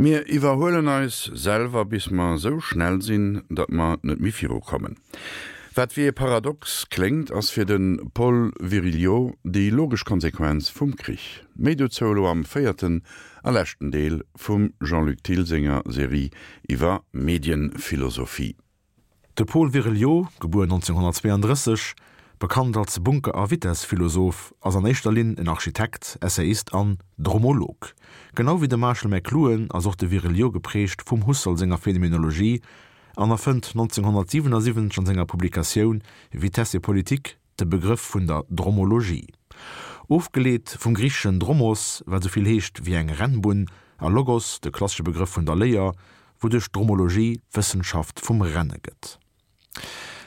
Mir iwwerhuelen eis selwer, bis mer esou schnell sinn, datt mer net méi virukommen. Wat wéi e Paradox kléngt, ass fir de Paul Virilio déi logesch Konsequenz vum Krich. Méi dozou elo am véierten a leschten Deel vum Jean-Luc Thill senger Serie iwwer Medienphilosophie. De Paul Virilio, gebuer 1932, bekannt als Bunker a Vitess-Philosoph, ass an éischter Linn en Architekt, Essayist an Dromolog. Genau wéi de Marshall McLuhan ass och de Virilio geprägt vum Husserl senger Phänomenologie an erfënnt 1977 an senger Publikatioun Vitesse et politique de Begrëff vun der Dromologie. Ofgeleet vum griicheschen dromos, wat esou vill heescht wéi eng Rennbunn, a logos, de klassesche Begrëff vun der Léier, wouduerch d'Dromologie d'Wëssenschaft vum Renne gëtt.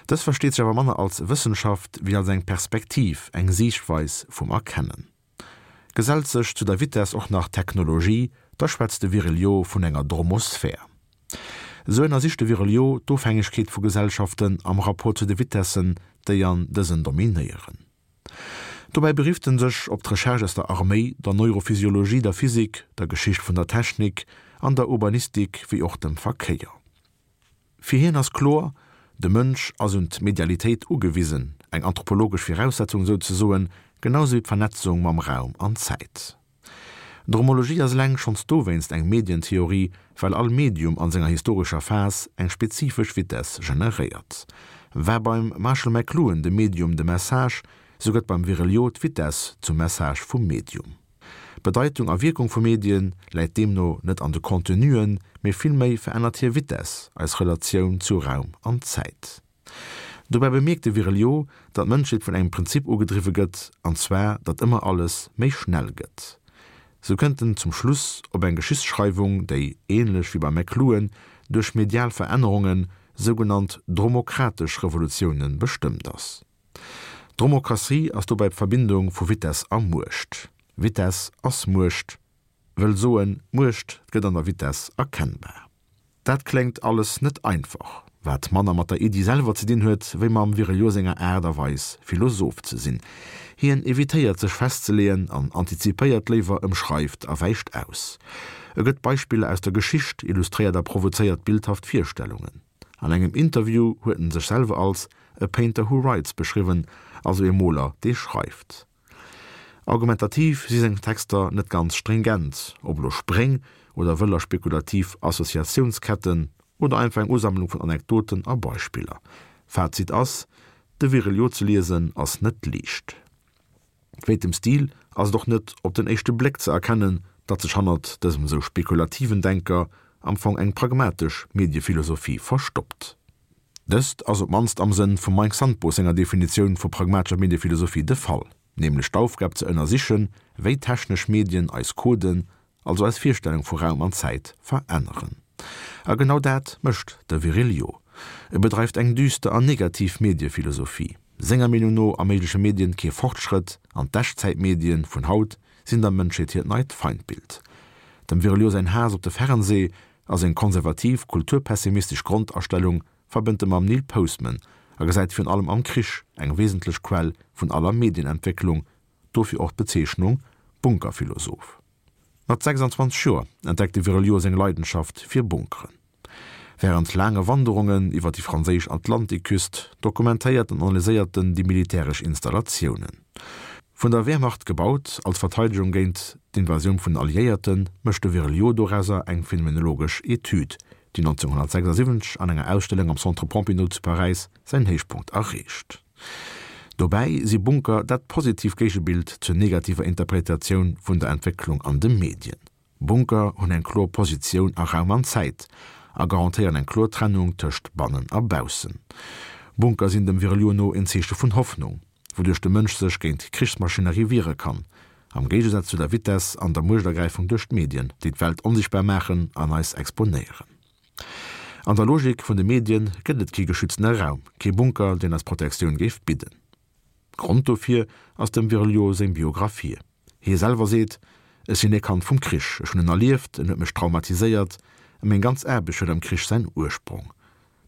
Dës versteet sech awer manner als Wëssenschaft wéi als eng Perspektiv, eng Siichtweis vum Erkennen. Gesellt sech zu der Vitess och nach d'Technologie, da schwätzt de Virilio vun enger Dromosphär. Esou ënnersicht de Virilio d'Ofhängegkeet vu Gesellschaften am Rapport zu de Vitessen, déi an dësen dominéieren. Dobäi berifft en sech op d'Recherche aus der Arméi, der Neurophysiologie, der Physik, der Geschicht vun der Technik an der Urbanistik wéi och dem Verkéier. Fir hien ass kloer, de Mënsch ass un d'Medialitéit ugewisen, eng anthropologesch Viraussetzung souzesoen, genau sou wéi d'Vernetzung mam Raum an Zäit. D'Dromologie ass eleng schonns dowéinst eng Medientheorie, well all Medium an senger historescher Phas eng spezifesch Vitess generéiert. War beim Marshall McLuhan de Medium de Message, sou gëtt beim Virilio d'Vitess zum Message vum Medium. D'Bedeitung a Wierkung vu Medien läit deemno net an de Contenuen, mee villméi verännert hir Vitess eis Relatioun zu Raum an Zäit. Dobäi bemierkt de Virilio, datt d'Mënschheet vun engem Prinzip ugedriwwe gëtt, an zwar datt ëmmer alles méi schnell gëtt. Sou kënnt en zum Schluss op eng Geschichtsschreiwung, déi, ähnlech wéi beim McLuhan, duerch medial Verännerungen, sougenannt dromokratesch Revolutiounen, bestëmmt ass. D'Dromokratie ass dobäi d'Verbindung vu Vitess a Muecht. Vitess ass Muecht, wëll soen, Muecht gëtt an der Vitess erkennbar. Dat kléngt alles net einfach, wat manner mat der Iddi selwer ze dinn huet, wéi mam Virilio senger Aart a Weis, Philosoph ze sinn. Hien evitéiert sech festzeleeën an antizipéiert léiwer, ëmschreift a wäicht aus. E gëtt Beispiller aus der Geschicht, illustréiert a provozéiert bildhaft Virstellungen. An engem Interview huet en sech selwer als a painter who writes beschriwwen, also ee Moler, dee schreift. Argumentativ si seng Texter net ganz stringent, ob elo Spréng oder wëller spekulativ Associatiounsketten oder einfach eng Usammlung vun Anekdoten a Beispiller. Fazit ass, De Virilio ze liesen ass net liicht. Wéint dem Stil ass et och net op den éischte Bléck ze erkennen, datt sech hannert dësem esou spekulativen Denker am Fong eng pragmatesch Mediephilosophie verstoppt. Dëst ass op d'mannst am Sënn vum Mike Sandbos senger Definitioun vu pragmatescher Mediephilosophie de Fall, nämlech d'Aufgab ze ënnersichen, wéi technesch Medien eis Coden, also eis Virstellung vu Raum an Zäit, veränneren. A genau dat mécht de Virilio. E bedreift eng düster an negativ Mediephilosophie. Senger Meenung no erméigleche Medien kee Fortschrëtt an d'Echtzäitmedien vun haut sinn der Mënschheet hiert neit Feindbild. Dem Virilio säin Haass op de Fernsee a seng konservativ, kulturpessimistesch Grondastellung verbënnt e mam Neil Postman a gesäit virun allem am Krich eng wesentlech Quell vun aller Medienentwécklung, dofir och d'Bezeechnung Bunkerphilosoph. Mat 26 Joer entdeckt de Virilio seng Leidenschaft fir Bunkeren. Wärend laange Wanderungen iwwer déi franséisch Atlantikküst dokumentéiert an analyséiert en déi militäresch Installatiounen. Vun der Wehrmacht gebaut als Verteidegung géint d'Invasioun vun den Alliéierten, mécht de Virilio dorauser eng phänomenologesch Etüd, déi 1976 an enger Ausstellung am Centre Pompidou zu Paräis säin Héichpunkt erreecht. Dobäi si Bunker dat positiv Géigebild zur negativer Interpretatioun vun der Entwécklung an de Medien. Bunker hunn eng kloer Positioun a Raum an Zäit a garantéieren eng kloer Trennung tëscht bannen a baussen. Bunker sinn dem Virilio no en Zeeche vun Hoffnung, wouduerch de Mënsch sech géint d'Krichsmaschinerie wiere kann, am Géigesaz zu der Vitess an der Muechtergräifung duerch d'Medien, déi d'Welt onsichtbar maachen an eis exponéieren. An der Logik vun de Medien gëtt et kee geschütztene Raum, kee Bunker, deen eis Protektioun géif bidden. Grond dofir ass dem Virilio seng Biographie. Hie selwer seet, Ech sinn ee Kand vum Krich, ech hunn en erlieft, en huet mech traumatiséiert a meng ganz Aarbecht huet am Krich säin Ursprong.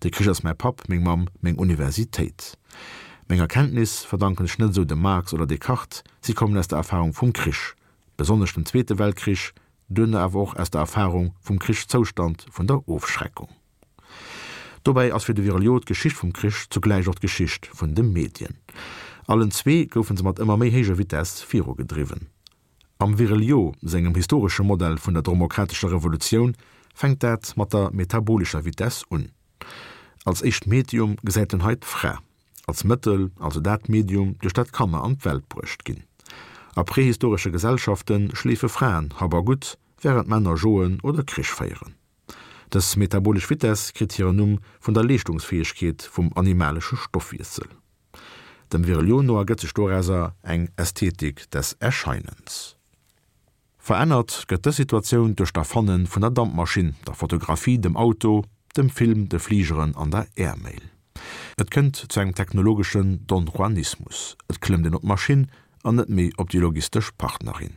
De Krich ass mäi Papp, meng Mamm, meng Universitéit. Meng Erkenntnis verdanken ech net esou dem Marx oder Descartes, si kommen aus der Erfarung vum Krich, besonnesch dem Zweete Weltkrich. duerno awer och aus der Erfarung vum Krichszoustand, vun der Ofschreckung. Dobäi ass fir de Virilio d'Geschicht vum Krich zugläich och d'Geschicht vun de Medien. Allen zwee goufe se mat ëmmer méi héijer Vitess virugedriwwen. Am Virilio sengem historesche Modell vun der dromokratescher Revolutioun fänkt dat mat der metabolescher Vitess un. Als éischt Medium gesäit en hei d'Fra, als Mëttel, also dat Medium, duerch dat Kanner an d'Welt bruecht ginn. A prehistoresche Gesellschafte schleefe Fraen Hab a Gutt, wärend Männer joen oder Krich féieren. Dës metabolesch Vitess kritt hiren Numm vun der Leeschtungsfäegkeet vum animalesche Stoffwiessel. Dem Virilio no ergëtt sech dorauser eng Ästhetik des Erscheinens. Verännert gëtt dës Situatioun duerch d'Erfanne vun der Dampmaschinn, der Fotografie, dem Auto, dem Film, de Fligeren an der Airmail. Et kënnt zu engem technologeschen Don-Juanismus, et klëmmt een op d'Maschinn an net méi op déi logistesch Partnerin.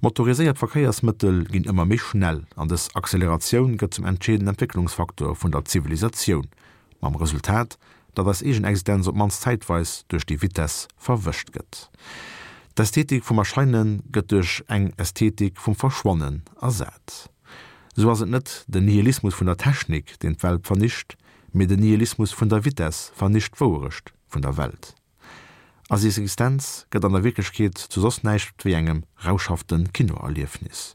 Motoriséiert Verkéiersmëttel ginn ëmmer méi schnell an dës Acceleratioun gëtt zum entscheedenden Entwécklungsfaktor vun der Zivilisatioun, mam Resultat, datt eis eegen Existenz op d'mannst zäitweis duerch déi Vitess verwëscht gëtt. D'Ästhetik vum Erscheine gëtt duerch eng Ästhetik vum Verschwannen ersat. Sou ass et net den Nihilismus vun der Technik, deen d'Welt vernicht, mee den Nihilismus vun der Vitess vernicht d'Wouerecht vun der Welt. Eis Existenz gëtt an der Wierklechkeet zu soss näischt wéi engem rauschhafte Kinoerliefnis.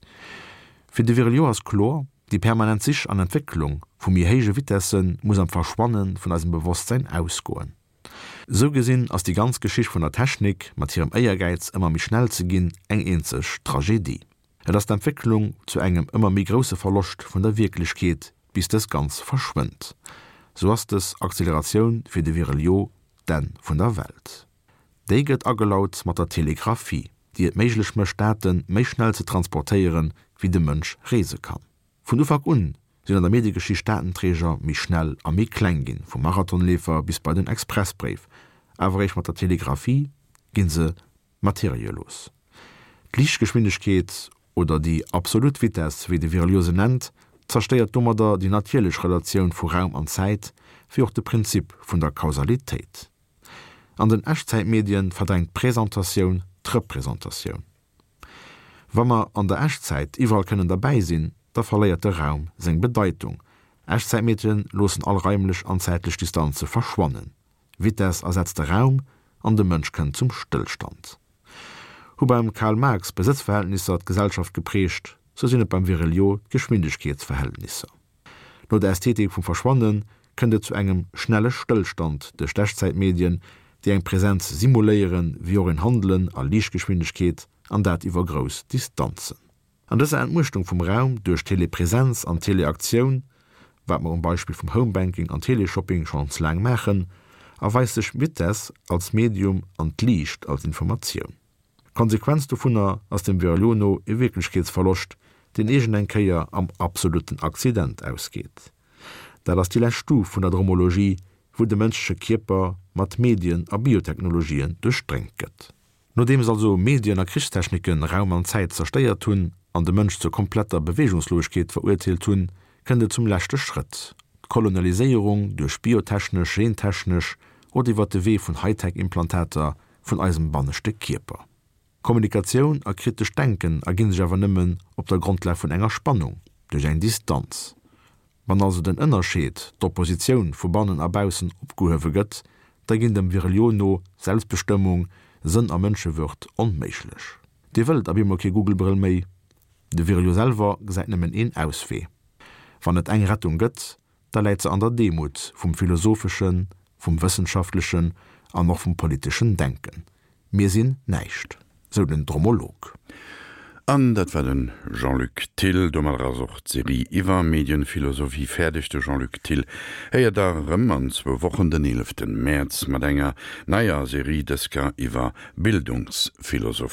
Fir de Virilio ass kloer, déi permanent Sich an Entwécklung vu méi héije Vitesse muss am Verschwanne vun eisem Bewosstsäin ausgoen. Sou gesinn ass déi ganz Geschicht vun der Technik, mat hirem Éiergäiz ëmmer méi schnell ze ginn, eng eenzeg Tragedie. Et ass d'Entwécklung zu engem ëmmer méi grousse Verloscht vun der Wierklechkeet, bis dës ganz verschwënnt. Sou ass dës Acceleratioun fir de Virilio d'Enn vun der Welt. Déi gëtt agelaut mat der Telegraphie, déi et méiglech mécht Date méi schnell ze transportéieren, wéi de Mënsch reese kann. Vun Ufank un sinn an der Mediegeschicht Datenträger méi schnell a méi kleng ginn, vum Marathonleefer bis bei den Expressbréif, awer eréischt mat der Telegraphie ginn se Materielos. D'Liichtgeschwindegkeet, oder déi absolut Vitess, wéi de Virilio se nennt, zerstéiert domadder déi natierlech Relatioun vu Raum an Zäit, wéi och de Prinzip vun der Kausalitéit. An den Echtzäitmedien verdrängt d'Presentatioun d'Representatioun. Wa mer an der Echtzäit iwwerall kënnen derbäi sinn, da verléiert de Raum seng Bedeitung. Echtzäitmedien loossen all raimlech an zäitlech Distanze verschwannen. Vitess ersetzt de Raum an de Mënsch kënnt zum Stëllstand. Hu beim Karl Marx d'Besëtzverhältnisser d'Gesellschaft geprägt, sou sinn et beim Virilio d'Geschwindegkeetsverhältnisser. No der Ästhetik vum Verschwanne kënnt et zu engem schnelle Stëllstand duerch d'Echtzäitmedien, déi eng Präsenz simuléieren, wéi och een Handelen a Liichtgeschwindegkeet, an dat iwwer grouss Distanzen. An dëser Entmuechtung vum Raum duerch Telepresenz an Teleaktioun, wat mer um Beispill vum Homebanking an Teleshopping schonns laang maachen, erweist sech d'Vitess als Medium an d'Liicht als Informatioun. D'Konsequenz dovunner ass dem Virilio no e Wierklechkeetsverloscht, deen iergend eng Kéier am absolutten Accident ausgeet. Dat ass déi lescht Stuf vun der Dromologie, wou de mënschleche Kierper mat Medien a Biotechnologien duerchdréngt gëtt. Nodeems also Medien a Krichstechniken Raum an Zäit zerstéiert hunn an de Mënsch zur kompletter Beweegungslosegkeet verurteelt hunn, kënnt et zum leschte Schrëtt, d'Kolonialiséierung duerch biotechnesch, gentechnesch oder iwwer de Wee vun Hightech-Implantater vun eisem banneschte Kierper. Kommunikatioun a kritescht Denken erginn sech awer nëmmen op der Grondlag vun enger Spannung, duerch eng Distanz. Wann also den Ënnerscheed, d'Oppositioun vu bannen a baussen opgehuewe gëtt, da ginn dem Virilio no Selbstbestëmmung, Sënn a Mënschewürd onméiglech. Dir wëllt ab eemol kee Google-Brëll méi? De Virilio selwer gesäit nëmmen een Auswee. Wann et eng Rettung gëtt, da läit se an der Demut vum philosopheschen, vum wëssenschaftlechen an och vum politeschen Denken. Mir sinn näischt, sou den Dromolog. An dat war de Jean-Luc Thill. Domadder ass och d'Serie iwwer Medienphilosophie fäerdeg. De Jean-Luc Thill héiert der erëm an zwou Wochen, den 11 Mäerz, mat enger neier Serie, dës Kéier iwwer Bildungsphilosophie.